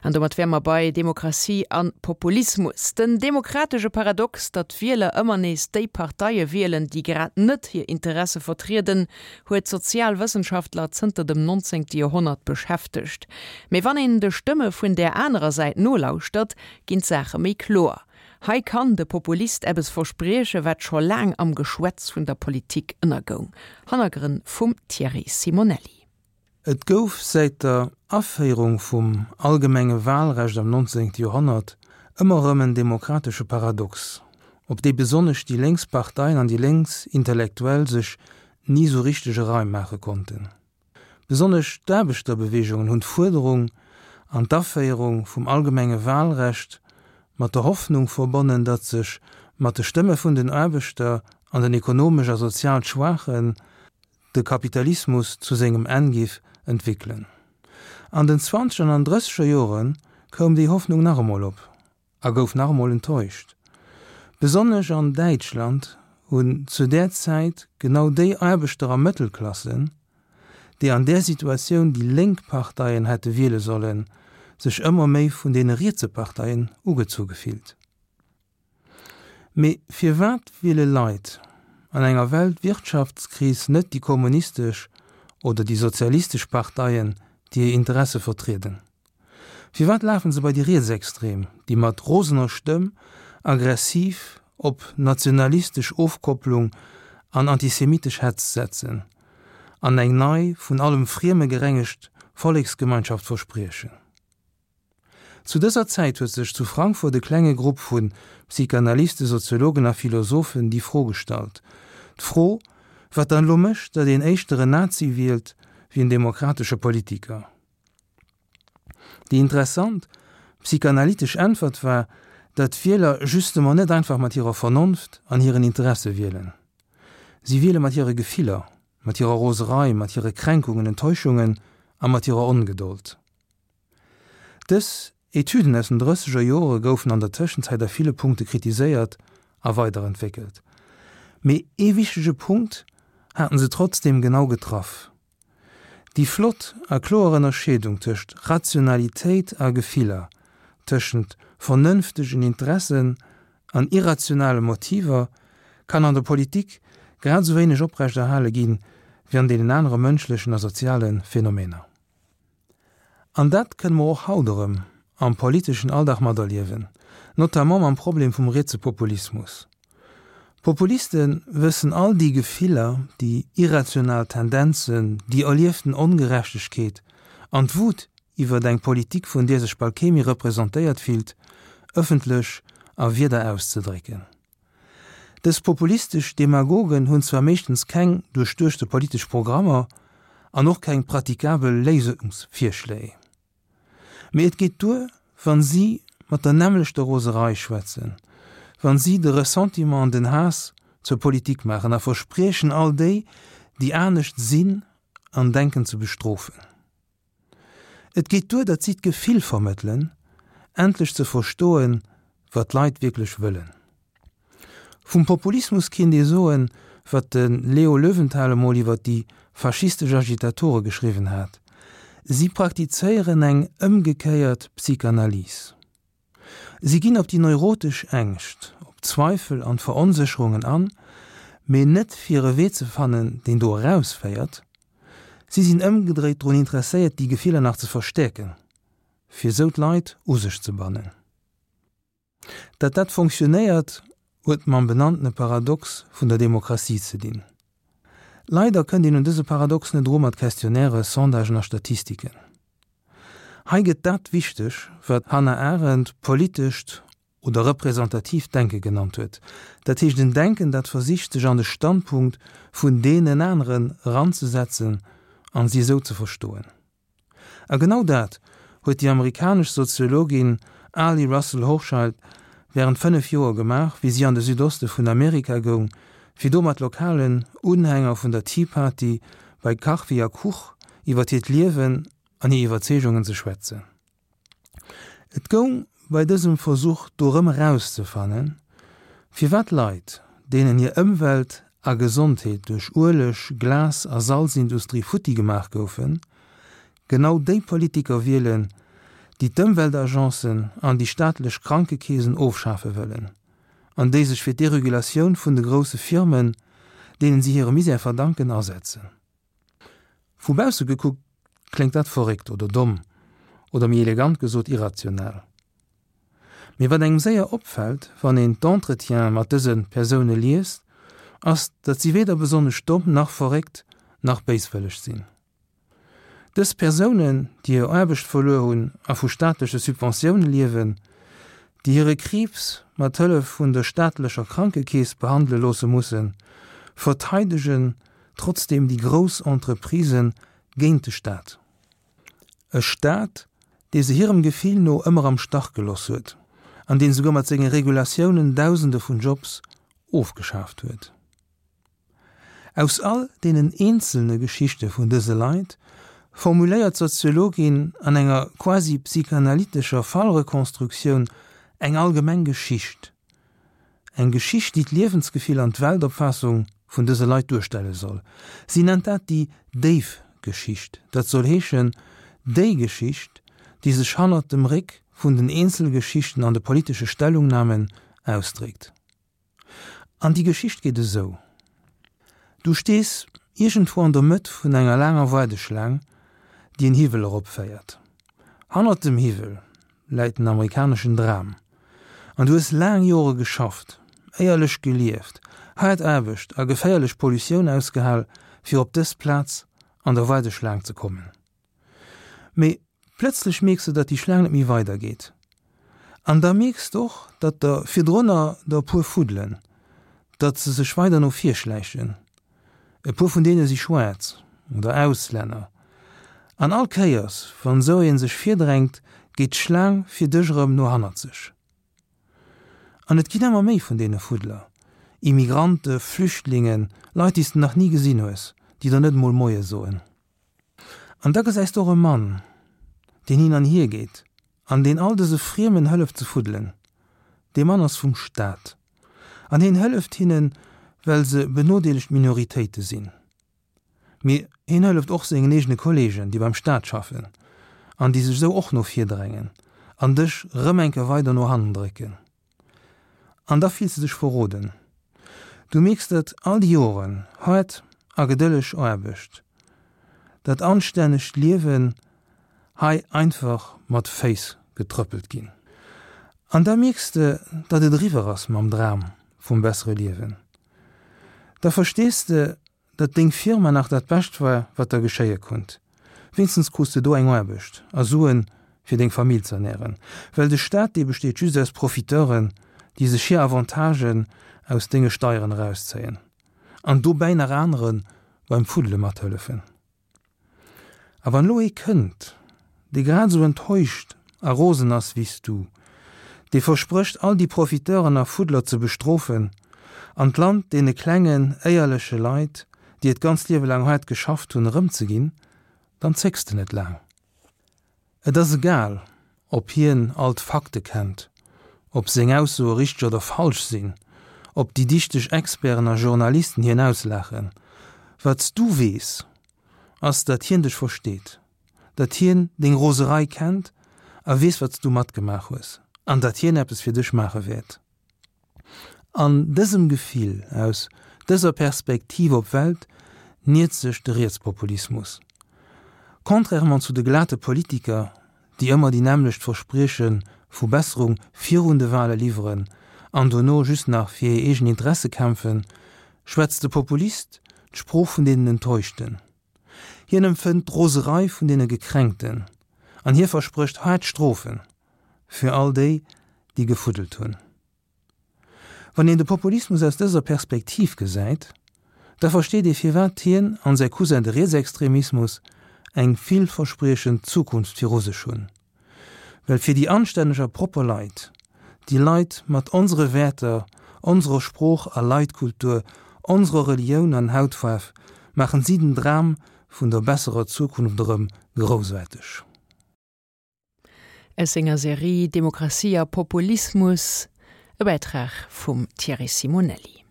An domat wäre mer bei Demokratie a Populismus. Den demokratesche Paradox, datt d'Wieler ëmmer nees déi Parteie wielen, déi grad net hir Interesse vertrieden, huet d'Sozialwëssenschaftler zënter dem 19. Joerhonnert beschäftegt. Mee wann een de Stëmme vun där anerer Säit nolauschtert, ginn d'Saache méi kloer. Hei kann de Populist eppes versprieche wat scho laang am Geschwätz vun der Politik ënnergoung. Hannergrënn vum Thierry Simonelli. Et gouf säit der Aféierung vum allgemenge Walrecht am 19. Joerhonnert ëmmer erëm en demokratesche Paradox, op dee besonnesch déi lénks Parteien an déi lénks Intellektuell sech ni sou richteg e Reim maache konnten. Besonnesch d'Aarbechterbeweegungen hunn d'Fuerderung an d'Aféierung vum allgemenge Walrecht mat der Hoffnung verbonnen, datt sech mat de Stëmme vun den Aarbechter an den ekonomesch a sozial Schwaachen de Kapitalismus zu sengem Enn giff entwéckelen. An den zwanzeger an drësseger Jore koum déi Hoffnung nach emol op a gouf nach emol enttäuscht. Besonnesch an Däitschland hunn zu där Zäit genau déi Aarbechter a Mëttelklassen, déi an där Situatioun déi lénk Parteien hätte wiele sollen, sech ëmmer méi vun deene rietse Parteien ugezu gefillt. Mee firwat wiele Leit an enger Weltwirtschaftskris net déi kommunistesch oder déi sozialistesch Parteien, déi hir Interesse vertrieden? Firwat lafen se bei déi Rietsextrem, déi mat rosener Stëmm aggressiv op nationalistesch Ofkopplung an antisemitesch Hetz setzen an eng nei, vun allem Frieme gerengegt Volleksgemeinschaft verspriechen? Zu dëser Zäit huet sech zu Frankfurt e klenge Grupp vu Psychanalysten, Soziologen a Philosophen déi Fro gestallt. D'Fro, wat dann elo mécht, datt een éischter en Nazi wielt wéi en demokratesche Politiker. Déi interessant psychanalytesch Äntwert war, datt d'Wieler justement net einfach mat hirer Vernonft an hiren Interesse wielen. Si wiele mat hire Gefiller, mat hirer Roserei, mat hire Kränkungen, Enttäuschungen a mat hirer Ongedold. Dës Etüden aus den drësseger Jore goufen an der Tëschenzäit a ville Punkte kritiséiert a weiderentwéckelt. Mee ee wichtege Punkt haten se trotzdeem genau getraff, Déi flott a kloer Ënnerscheedung tëscht Rationalitéit a Gefiller, tëschent vernënftegen Interessen an irrationale Motiver kann an der Politik grad esou wéineg oprechterhale ginn, wéi an deenen anere mënschlechen a soziale Phänomener. An dat kënne mer och haut erëm am politeschen Alldag materliewen, notamment mam Problem vum rietse Populismus. Populiste wëssen all déi Gefiller, déi irrational Tendenzen, déi erlieften Ongerechtegkeet an d'Wut iwwert eng Politik, vun där sech bal kee méi representéiert fillt, ëffentlech a Wierder auszedrécken. Dës populistesch Demagogen hunn zwar meeschtens keng duerchduechte politesch Programmer an och keng pratikabel Léisungsvirschléi, mee et geet duer, wann si mat der nämmlechter Roserei schwätzen, wann si de Ressentiment an den Haass zur Politik maachen a verspriechen all déi, déi anescht sinn an denken ze bestrofen. Et geet duer, datt si d'Gefill vermëttelen, endlech ze verstoen, wat d'Leit wierklech wëllen. Vum Populismus kinnt ee soen, wat de Leo Löwenthal emol iwwer déi faschistesch Agitatore geschriwwen hat, Si praktizéieren eng ëmgekéiert Psychanalyse. Si ginn op déi neurotesch Ängscht, op d'Zweifel an d'Veronsécherungen an, mee net fir e Wee ze fannen, deen do erausféiert. Si sinn ëmgedréit drun interesséiert, déi Gefiller nach ze verstäerken, fir esou d'Leit u sech ze bannen. Datt dat fonctionnéiert, huet mam benanntene Paradox vun der Demokratie ze dinn. Leider kënnt een un dëse Paradox net eru mat Questionnaires, Sondagen a Statistiken. Hei gëtt dat wichteg, wat d'Hannah Arendt politescht oder representatiivt Denke genannt huet, dat heescht en Denken, dat versicht, sech an de Standpunkt vun deenen aneren eranzesetzen an si esou ze verstoen. A genau dat huet déi amerikanesch Soziologin Arlie Russell Hochschild wärend 5 Joer gemaach, wéi si an de Südoste vun Amerika goung, fir do mat lokalen Unhänger vun der Tea Party bei Kachfi a Kuch iwwer hiert Liewen an hir Iwwerzeegungen ze schwätzen. Et goung bei dësem Versuch dorëm erauszefannen, firwat Leit, deenen hir Ëmwelt a Gesondheet duerch Ueleg-, Glas a Salzindustrie futti gemaach goufen, genau déi Politiker wielen, déi d'Ëmweltagencen an déi staatlech Krankekeesen ofschafe wëllen an déi sech fir d'Deregulatioun vun de grousse Firmen, deenen si hire Misär verdanken, asetzen. Vu bausse gekuckt kléngt dat verréckt oder domm oder méi elegant gesot irrational. Mee wat engem séier opfält, wann een d'Entretiene mat dëse Persoune liest, ass, datt si weder besonnesch domm nach verréckt nach béiswëlleg sinn. Dës Persounen, déi hir Aarbecht verluer hunn a vu staatleche Subventioune liewen, déi hire Kriibs mat Hëllef vun der staatlecher Krankekeess behandele loosse mussen, verteidegen trotzdeem déi grouss Entreprisë géint de Staat. E Staat, dee se hirem Gefill no ëmmer am Stach geloss huet an deen souguer mat senge Regulatiounen Dausende vun Jobs ofgeschaaft huet. Aus all deenen eenzelne Geschichte vun dëse Leit formuléiert d'Soziologin an enger quasi psychanalytescher Fallrekonstruktioun eng allgemeng Geschicht, eng Geschicht, déi d'Liewensgefill an d'Weltopfaassung vun dëse Leit duerstelle soll. Si nennt dat déi déif Geschicht, dat soll heeschen, déi Geschicht, déi sech hannert dem Réck vun den Eenzelgeschichten an de politesche Stellungnamen ausdréckt. An déi Geschicht geet esou, Du stees iergendwou an der Mëtt vun enger laanger Waardeschlaang, déi en Hiwwel eropféiert. Hannert dem Hiwwel läit den amerikaneschen Dram. An du hues laang Jore geschafft, éierlech gelieft, haart Aarbecht a geféierlech Pollutioun ausgehal, fir op dës Plaz an der Waardeschlaang ze kommen. Mee plëtzlech mierks de, datt déi Schlaang net méi weider geet. An da mierks de och, datt der virdrunner der e puer fuddelen, datt se sech weider no vir schläichen. E puer vun deene si schwaarz oder Auslänner. An all Kéiers, wann esou ee sech virdrängt, geet d'Schlaang fir dech erëm no hannerzeg. An et ginn ëmmer méi vun deene Fuddler, Immigrante, Flüchtlingen, Leit, déi s de nach ni gesinn hues, déi der net emol Moie soen. An da gesäis de och e Mann, deen hin an hier geet an deen all dëse Friemen hëlleft ze fuddelen. Dee Mann ass vum Staat an hien hëlleft hinnen, well se benodeelegt Minoritéite sinn. Mee hien hëlleft och sengen eegene Kolleegen, déi beim Staat schaffen an déi sech esou och no vir drängen an dech rëm eng Kéier weider no hannen drécken. An da fills de dech verroden. Du mierks, datt all déi Joren haart a gedëlleg Aarbecht, dat anstännegt Liewen hei einfach mat Féiss getrëppelt ginn. An da mierks de, datt et eriwwer ass mam Dram vum bessere Liewen. Da verstees de, Datt deng Firma nach dat Bescht war, wat der geschéie konnt. Wéinstens krus de do eng Aarbecht a Suen, fir deng Famill z'ernären. Well de Staat, dee besteet just aus Profiteuren, déi sech hir Avantagen aus denge Steieren erauszéien an dobäi nach anere beim Fuddele mathëllefen. A wann elo ee kënnt, dee grad esou enttäuscht a rosen ass wéi s du, dee versprécht all déi Profiteuren a Fuddler ze bestrofen an d'Land deene klengen, éierleche Leit, déi et ganz Liewe laang haart geschafft hunn, erëmzeginn, dann zécks de net laang. Et ass egal, ob hien all d'Fakte kennt, ob seng Aussoe richteg oder falsch sinn, ob déi dichteg Experten a Journalisten hien auslaachen. Wat s du weess, ass, datt hien dech versteet, datt hien deng Roserei kennt a weess, wat s du matgemaach hues, an datt hien eppes fir dech maache wäert. An dësem Gefill, aus dëser Perspektiv op d'Welt, niert sech de Rietspopulismus. Contrairement zu de glate Politiker, déi ëmmer déi nämmlecht Versprieche vu Besserung virun de Wale liwweren an dono just nach fir hir eegen Interesse kämpfen, schwätzt de Populist d'Sprooch vun deenen Enttäuschten. Hien empfënnt d'Roserei vun deene Gekränkten an hie versprécht haart Strofe fir all déi, déi gefuddelt hunn. Wann een de Populismus aus dëser Perspektiv gesäit, da versteet ee firwat hien an säi Cousin de Rietsextremismus eng villverspriechend Zukunft viru sech hunn. Well fir déi anstänneg a propper Leit, déi Leit mat onsere Wäerter, onserer Sprooch a Leitkultur, onserer Relioun an Hautfaarf, maachen si den Dram vun der besserer Zukunft erëm groussaarteg. Aus senger Serie Demokratie a Populismus, e Bäitrag vum Thierry Simonelli.